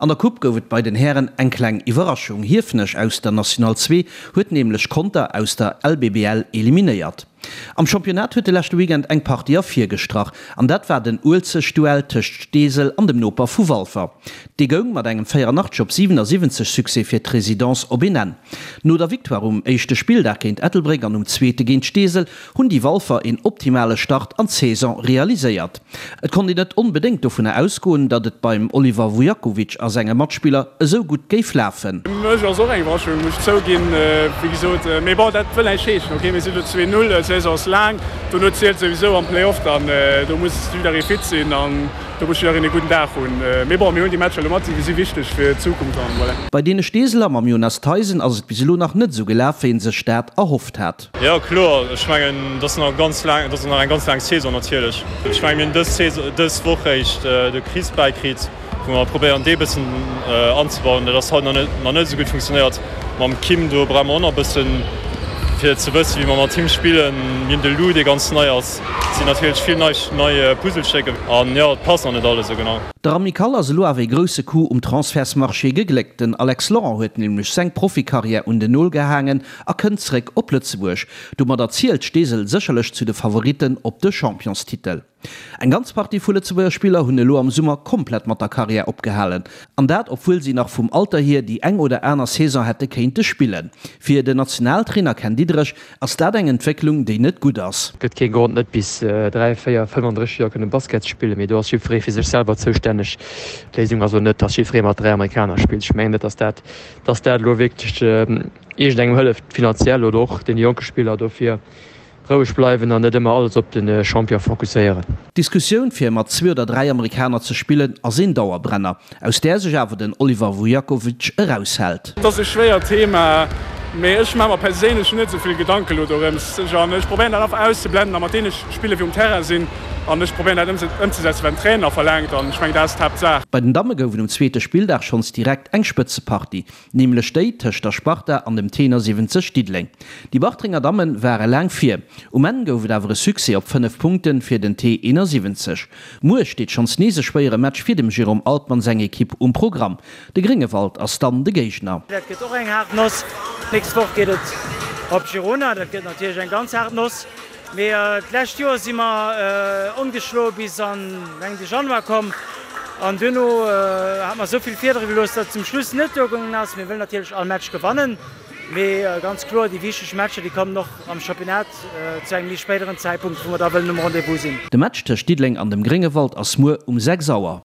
An der Coupe gouf et bei den Hären eng kleng Iwwerraschung. Hiefenech aus der National 2 huet nämlech Conter aus der LBBL eliminéiert. Am Championnat huet de leschte Weekend eng Partie ervirgestrach an dat war den Uelzecht-Duell tëscht Steesel an dem Noper vu Walfer. Dee goung mat engem 84 op 77 Succès fir d'Residence op een Enn. No der Victoire um éischte Spilldag géint Ettelbréck an um zweete géint Steesel hunn déi Walfer een optimale Start an d'Saison realiséiert. Et konnt een net onbedéngt dovunner ausgoen, datt et beim Oliver Vujakovic a senge Matspiller esou gutt géif lafen. Fir mech ass och eng Iwwerraschung, muss ech zouginn, wéi gesot. Mee bon, dat wëll näischt heeschen. Ok, mir sinn elo 2, 0, d'Saison ass laang, dono zielt souwisou am Play-off dann. Do muss jidderee fit sinn an do muss jiddereen e gudden Dag hunn. Mee bon, mir hunn déi Matcher elo mat, si wichteg fir d'Zukunft an voilà. Bei deene Steeseler mam Jonas Theisen ass et bis elo nach net esou gelaf, wéi een sech dat erhofft hat. Jo kloer, ech mengen et ass nach ganz laang, et ass nach eng ganz laang Saison natierlech. Ech mengen mir hunn dës Saison, dës Woch réischt de Chris bäikritt, wou mer probéieren dee bëssen anzebauen. Dat ass haut nach net, nach net esou gutt funktionéiert. Mam Kim do brauche mer och nach e bëssen fir ze wëssen, wéi mer mat him spillen. Mir hunn de Lou dee ganz nei ass. Et sinn natierlech vill nei, nei Puzzlestécker an jo et passt nach net alles esou genau. Der Amicale ass elo awer ee grousse Coup um Transfertsmarché gegléckt. Den Alex Laurent huet nämlech seng Profikarriär un den Nol gehaangen a kënnt zréck op Lëtzebuerg. Domadder zielt Steesel sécherlech zu de Favoritten op de Championstitel. Eng ganz Partie vu Lëtzebuerger Spiller hunn elo am Summer komplett mat der Karriär opgehalen. An dat obwuel si nach vum Alter hier déi eng oder aner Saison hätte kéinte spillen. Fir den Nationaltrainer Ken Diederich ass dat eng Entwécklung, déi net gutt ass. Gëtt kee Grond net bis 3, 4, 35 Joer kënne Basket ze spillen, mee do ass jiddweree fir sech selwer zoustänneg. D'Léisung ass och net, dass jiddweree mat 3 Amerikaner spillt. Ech mengen net, dass dat dass dat elo wierklech iergendengem hëlleft, finanziell oder och deene jonke Spiller. Dofir roueg bleiwen an net ëmmer alles op de Champion fokusséieren. D'Diskussioun fir mat zwee oder 3 Amerikaner ze spillen ass een Dauerbrenner, aus där sech awer den Oliver Vujakovic eraushält. Et ass e schwéiert Thema, mee ech maache mer perséinlech net esou vill Gedanken elo dorëms. An ech probéieren dat einfach auszeblenden a mat deene Spiller wéi um Terrain sinn an ech probéieren dat ëmzesetzen, wat den Trainer verlaangt an ech mengen dat ass d'Haaptsaach. Bei den Damme gouf et um zweete Spilldag schonns direkt eng Spëtzepartie, nämlech déi tëscht der Sparta an dem Tenor 70 Diddeleng. Déi Bartrenger Damme ware laang vir, um Enn gouf et awer e Succès op 5 Punkte fir den T 71. Muer steet schonns nees e schwéiere Match fir dem Jérôme Altmann seng Ekipp um Programm. De Gréngewald ass dann de Géigner. Dat gëtt och eng haart Noss. D'nächst Woch geet et op Girona. Dat gëtt natierlech eng ganz haart Noss. Mee d'lescht Joer si mer ongeschloe bis an mengen de Januar komm an duerno hat mer esou vill Fiedere gelooss, datt et zum Schluss net duergaangen ass. Mir wëllen natierlech all Match gewannen, mee ganz kloer déi wichteg Matcher déi kommen och am Championnat zu engem méi spéideren Zäitpunkt, wou mer da wëllen um Rendez-vous sinn. De Match tëscht Diddeleng an dem Gréngewald ass muer um 6 Auer.